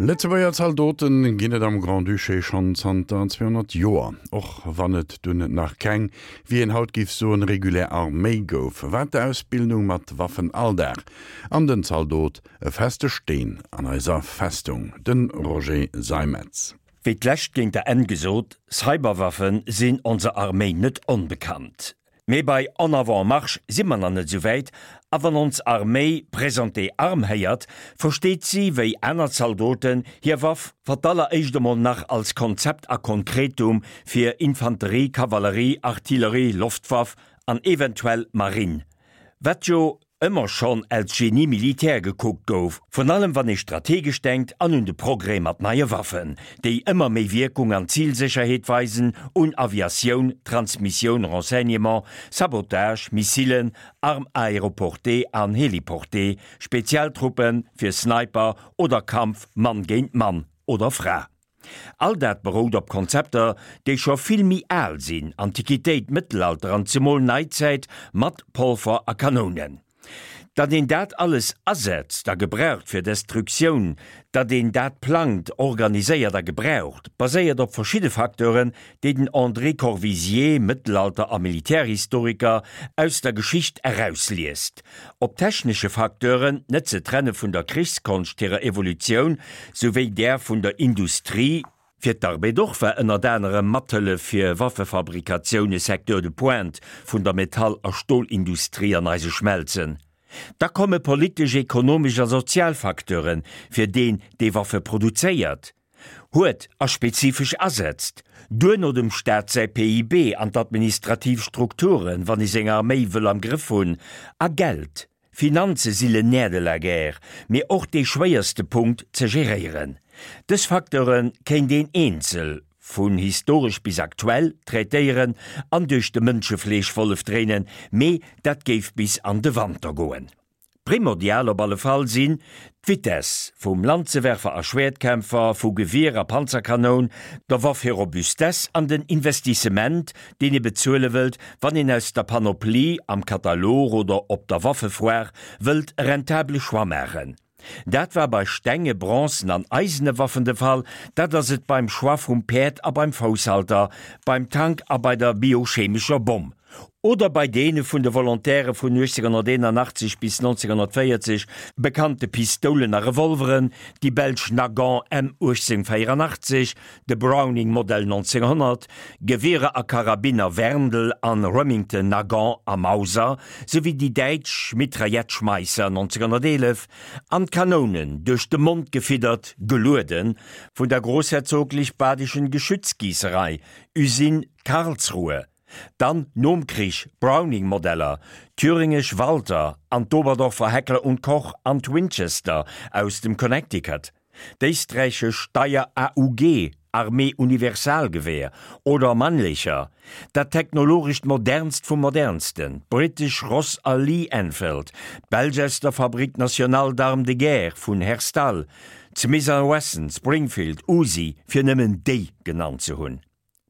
Lëtzebuerger Zaldote ginn et am Grand-Duché schonn zanter 200 Joer. Och wann et dunn nach keng, wéi een haut géif soen, regulär Arméi gouf, war d'Ausbildung mat Waffen Alldag an den Zaldot e feste Steen an eiser Festung. De Roger Seimetz. Wéi d'lescht géint der Enn gesot, Cyberwaffe sinn onser Arméi net onbekannt. Mee bei En avant marche si mer nach net esou wäit, a wann ons Arméi Présentez armes héiert, versteet si, wéi aner Zaldoten, hir Waff fir d'alleréischt emol nach als Konzept a Konkretum fir Infanterie, Kavallerie, Artillerie, Loftwaff an eventuell Marine, wat jo ëmmer schonn als Génie militaire gekuckt gouf, vrun allem wann ee strategesch denkt an un de Progrès mat neie Waffen, déi ëmmer méi Wierkung an Zilsécherheet weisen, un Aviatioun, Transmissioun, Renseignement, Sabotage, Missilen, Armes aéroportées an héliportées, Spezialtruppe fir Sniper oder Kampf Mann géint Mann oder Fra. All dat berout op Konzepter, déi scho vill méi al sinn, Antiquitéit, Mëttelalter an zemol Neizäit mat Polver a Kanounen. Datt een dat alles asetzt a gebraucht fir Destruktioun, datt een dat plangt, organiséiert a gebraucht, baséiert op verschidde Facteuren, déi den André Corvisier, Mëttelalter a Militärhistoriker, aus der Geschicht erausliest. Op technesche Facteuren, net ze trenne vun der Krichskonscht hirer Evolutioun souwéi där vun der Industrie, Fir d'Armée d'Or war ënnert anerem Mathëllef fir Waffefabrikatioun e Secteur de pointe vun der Metall a Stolindustrie an eise Schmelzen. Da komme politesch, ekonomesch a sozial Facteure fir deen, dee Waffe produzéiert. Huet a spezifesch asetzt, duerno dem Staat säi PIB an d'administrativ Strukturen, wann ee seng Arméi wëll am Grëff hunn, a Geld, Finanze si le nerf de la guerre, mee och dee schwéierste Punkt ze geréieren. Dës Facteure kéint een eenzel, vun historesch bis aktuell, traitéieren an duerch de Mënschefleeschwollef dréinen, mee dat géif bis an de Wanter goen. Primordial op alle Fall sinn d'Vitesse vum Lanzewerfer a Schwäertkämpfer, vu Gewier a Panzerkanoun, der Waff hir Robustesse an den Investissement, deen ee bezuele wëllt, wann een aus der Panoplie am Katalog oder op der Waffefoire wëllt e rentabele Choix maachen. Dat war bei stenge, bronzen an eisene Waffen de Fall, dat ass et beim Choix vum Päerd a beim Fousshalter, beim Tank a bei der biochemescher Bomm. Oder bei deene vun de Volontäre vun 1881 bis 1940 bekannte Pistoulen a Revolveren, déi belsch Nagant M 1884, de Browning Modell 1900, Gewierer a Karabiner Werndl an Remington Nagant a Mauser, souwéi déi däitsch Mitraillette Schmeisser 1911 an d'Kanounen, duerch de Mond gefiddert, gelueden, vun der Großherzoglich Badischen Geschützgießerei, Usine Karlsruhe. Dann nom Krich Browning-Modeller, thüringesch Walther an d'Oberdorfer Heckler und Koch an d'Winchester aus dem Connecticut, d'éisträichesch Steyr AUG, Armee Universalgewehr, oder Mannlicher, dat technologescht modernst vum modernsten, d'britesch Ross a Lee Enfield, d'belsch aus der Fabrique Nationale d'Armes de Guerre vun Herstal, d'Smith a Wesson, Springfield, Uzi, fir nëmmen déi genannt ze hunn.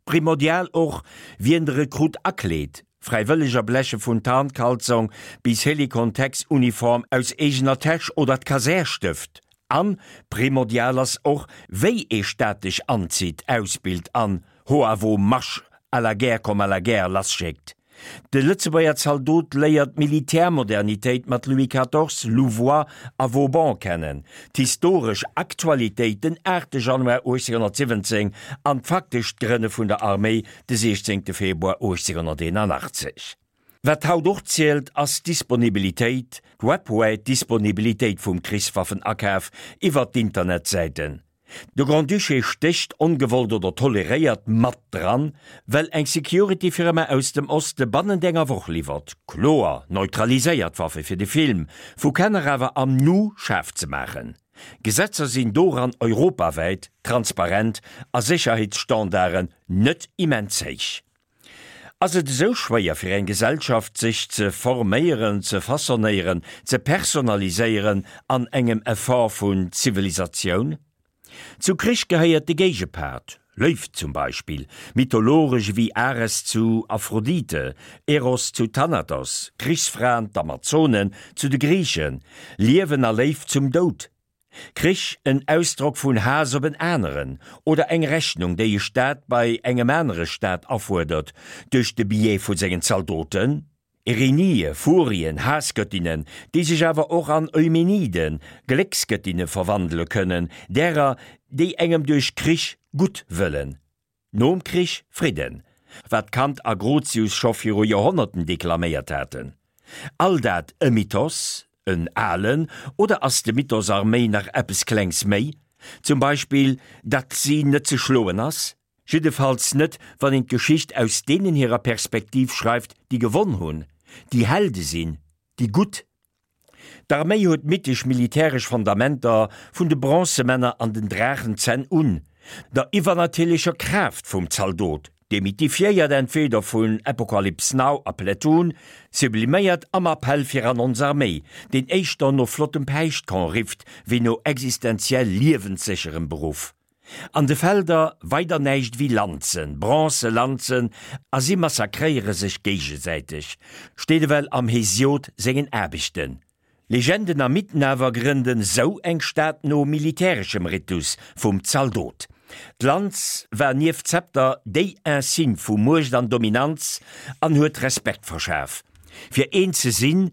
Primordial och, wien de Rekrutt akleet, Fräiwëlleger bleche vun Tarnkalzong bis Helikon-Tex-Uniform aus eegener Täsch oder d'Kasär stëft. An primordial ass och, wéi ee staatlech anzitt, ausbilt an ho à vos marches, à la guerre comme à la guerre lasschéckt. De Lëtzebuerger Zaldot léiert d'Militärmodernitéit mat Louis quatorze, Louvois a Vauban kennen, d'historesch Aktualitéit den 8 Januar 1817 an d'faktescht Grënne vun der Arméi de 16 Februar 1881. Wat haut och zielt, ass d'Disponibilitéit, d'webwäit Disponibilitéit vum Krichswaffenakaf iwwer d'Internetsäiten. De Grand-Duché stécht, ongewollt oder toleréiert, mat dran, well eng Security-Firma aus dem Oste bannent enger Woch liwwert. Kloer neutraliséiert Waffe fir de Film, vu Kenner awer am Nu schaarf ze maachen. Gesetzer sinn doran europawäit transparent a Sécherheetsstandarden net immens héich. Ass et esou schwéier fir eng Gesellschaft sech ze forméieren, ze façonnéieren, ze personaliséieren an engem Effort vun Zivilisatioun? Zu Krich gehéiert de Géigepart, Léift zum Beispill, mythologesch ewéi Ares zu Aphrodite, Eros zu Thanatos, Krichsfraen, d'Amazonen zu de Griichen, Liewen a Léift zum Doud. Krich en Ausdrock vun Haass op en aneren oder eng Rechnung, déi e Staat bei engem anere Staat afuerdert duerch de Biais vu sengen Zaldoten? Erinie, Furien, Haassgöttinnen, déi sech awer och an Eumeniden, Glécksgöttinne verwandele kënnen, därer, déi engem duerch Krich gutt wëllen. Nom Krich Fridden, wat Kant a Grotius scho viru Joerhonnerten deklaméiert haten. All dat e Mythos, en alen, oder ass de Mythos Arméi nach eppes Klengs méi? Zum Beispill, datt si net ze schloen ass? Jiddefalls net, wann een d'Geschicht aus deenen hirer Perspektiv schreift, déi gewonn hunn, déi Helde sinn, déi Gutt. D'Arméi huet mythesch militäresch Fondamenter, vun de Bronzemänner an den Draachenzänn un, der iwwernatierlecher Kraaft vum Zaldot, demythifiéiert entweder vun Apocalypse Now a Platoon, subliméiert am Appell fir an ons Arméi, deen éischter no flottem Päischtkorn rifft, wéi no existenziell liewenssécherem Beruff. An de Felder weider näischt ewéi Lanzen, bronze Lanzen, a si massakréiere sech géigesäiteg, steet ewell am Hesiod sengen Aarbechten. Legenden a Mythen awer grënden sou eng Stad no militäreschem Ritus vum Zaldot. D'Lanz war nieft Zepter déi Insigne vu Muecht an Dominanz an huet Respekt verschaf. Fir een ze sinn,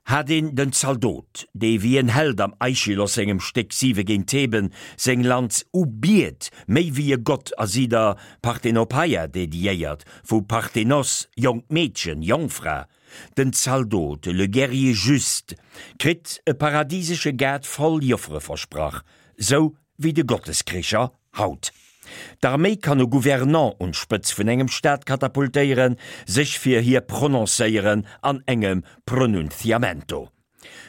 hat een den Zaldot, dee wéi en Held am Aischylos sengem Stéck Siwe géint Theben seng Lanz ubiet, méi wéi e Gott a si der Parthenopeia dediéiert, vu Parthenos, jonkt Meedchen, Jongfra. Den Zaldot, le guerrier juste, kritt e paradisesche Gaart voll Joffere versprach, sou wéi de Gotteskricher haut. D'Arméi kann e Gouvernant un d'Spëtz vun engem Staat katapultéieren, sech fir hie prononcéieren an engem Pronunciamento.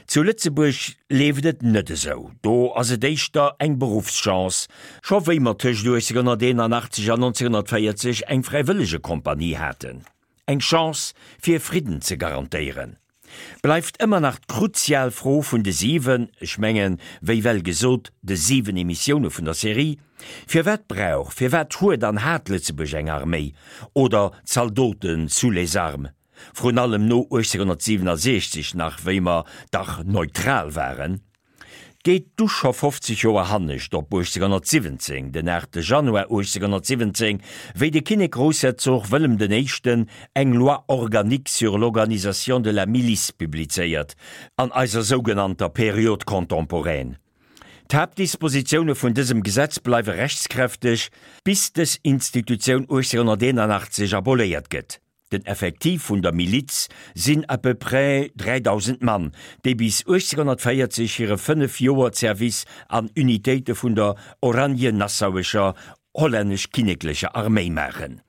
Zu Lëtzebuerg leeft et net esou, do ass et éischter eng Beruffschance, scho wéi mer tëscht 1881 an 1940 eng Fräiwëllegekompanie haten. Eng Chance fir Fridden ze garantéieren. Bleift ëmmer nach d'kruzial Fro vun de siwen, ech mengen, wéi well gesot, de siwen Emissioune vun der Serie, Firwat brauch, firwat huet an hat Lëtzebuerg eng Arméi oder Zaldoten sous les armes? Vrun allem no 1867 nach, wéi mer dach neutral waren. Geet du scho 50 Joer hannescht op 1817, den 8 Januar 1817, wéi de Kinnek-Groussherzog Wëllem den Éischten eng Loi organique sur l'organisation de la milice publizéiert, an eiser sougenannter Période contemporaine. D'Haaptdispositioune vun dësem Gesetz bleiwe rechtskräfteg, bis dës Institutioun 1881 aboléiert gëtt. Den Effektiv vun der Miliz sinn à peu près 3.000 Mann, déi bis 1840 hire 5 Joer Zerwiss an Unitéite vun der oranje-nassauescher hollännesch-kinneklecher Arméi maachen.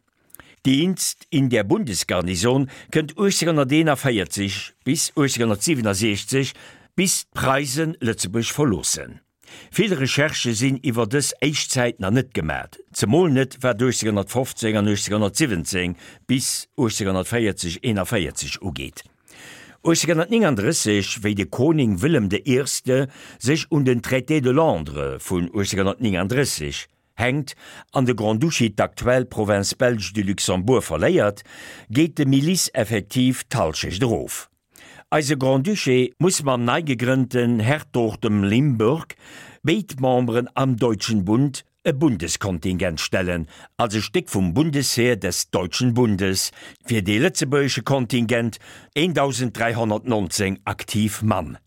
Dienst in der Bundesgarnison kënnt 1841 bis 1867, bis d'Preisen Lëtzebuerg verloossen. Vill Recherchë sinn iwwer dës éischt Zäit nach net gemat, zemol net wat 1815 an 1817 bis 1840, 41 ugeet. 1839, wéi de Koning Wëllem de Eerste sech un den Traité de Londres vun 1839 hänkt an de Grand-Duché d'aktuell Province belge du Luxembourg verléiert, geet de Milice-Effektiv d'Hallschecht erof. Eise Grand-Duché muss mam nei gegrënnten Hertogtem Limburg béid Memberen am Deutschen Bund e Bundeskontingent stellen, als e Stéck vum Bundesheer des Deutschen Bundes, fir dee lëtzebuergesche Kontingent, 1.319 aktiv Mann.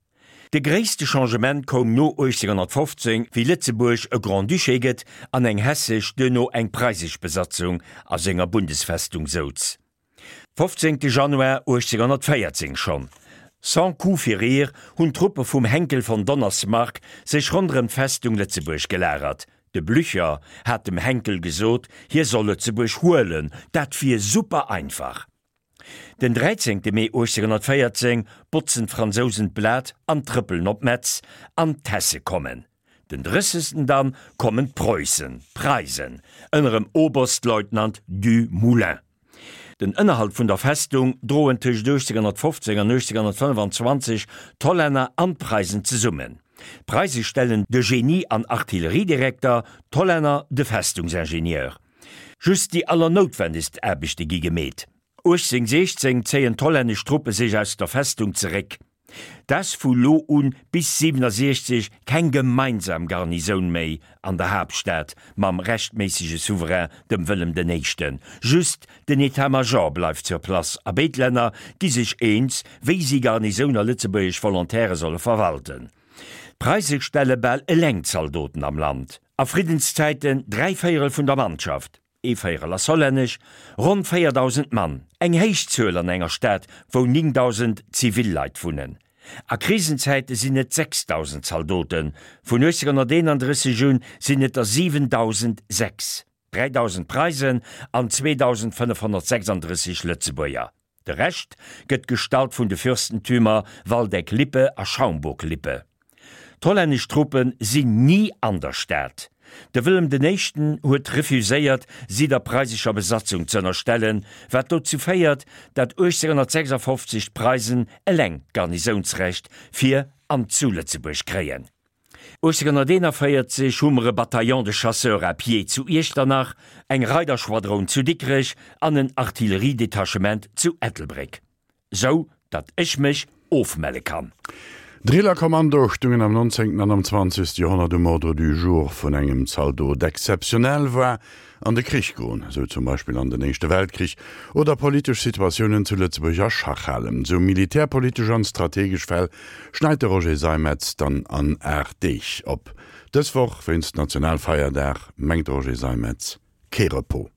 De gréisste Changement koum no 1815, wéi Lëtzebuerg e Grand-Duché gëtt an eng hessesch, duerno eng preisesch Besatzung a senger Bundesfestung souz. 15 Januar 1814 schonn, sans coup férir, hunn d'Truppe vum Henckel von Donnersmarck sech ronderëm d'Festung Lëtzebuerg gelagert. De Blücher hat dem Henckel gesot, hie soll Lëtzebuerg huelen, dat wier super einfach. Den 13 Mee 1814 botzen d'Fransousen d'Blat an trëppelen op Metz, an d'Hesse kommen. Den 30. Dann kommen d'Preussen, Preisen, ënnerem Oberstleutnant Du Moulin. Den Ënnerhalt vun der Festung droen tëscht 1815 an 1825 d'Hollänner an d'Preisen zesummen. D'Preise stellen de Genie an Artilleriedirekter, d'Hollänner de Festungsingenieur. Just déi allernoutwendegst Aarbechte gi gemeet. 1816 zéien d'hollännesch Truppe sech aus der Festung zeréck. T'ass vu lo un bis 67 keng gemeinsam Garnisoun méi an der Haaptstad mam rechtméissege Souverain, dem Wëllem den Éischten. Just den État-Major bleift sur place a béid Länner gi sech eens, wéi si Garnisoun a lëtzebuergesch Volontaire solle verwalten. D'Preise stelle bal eleng Zaldoten am Land, a Friddenszäiten dräivéierel vun der Mannschaft. Ee Véierel ass hollännesch, ronn 4.000 Mann, eng héich Zuel an enger Stad, wou 9.000 zivil Leit wunnen. A Krisenzäite sinn et 6.000 Zaldoten, vun 1831 un sinn et der 7.006, 3.000 Preisen an 2.536 Lëtzebuerger. De Rescht gëtt gestallt vun de Fürstentümer Waldeck-Lippe a Schaumburg-Lippe. D'hollännesch Truppe sinn ni an der Stad. De Wëllem den Éischten huet refuséiert, si der preisescher Besatzung z'ënnerstellen, wat dozou féiert, dat 1856 d'Preisen eleng d'Garnisounsrecht fir an zu Lëtzebuerg kréien. 1841 hu mer e Bataillon de chasseurs à pied zu Iechternach, eng Reiderschwadroun zu Dikrech an en Artilleriedetachement zu Ettelbréck. Sou datt ech mech ofmelle kann. Drillerkommando stungen am 19. An am 20. Joerhonnert um Ordre du jour vun engem Zaldot. Exzeptionell war an de Krich goen, sou zum Beispill an den Éischte Weltkrich, oder politesch Situatiounen zu Lëtzebuerg a Schach halen. Sou militärpolitesch an strategesch Fäll schneit de Roger Seimetz dann an 8 Deeg op. Dës Woch, wéinst Nationalfeierdag, mengt de Roger Seimetz, kee Repos.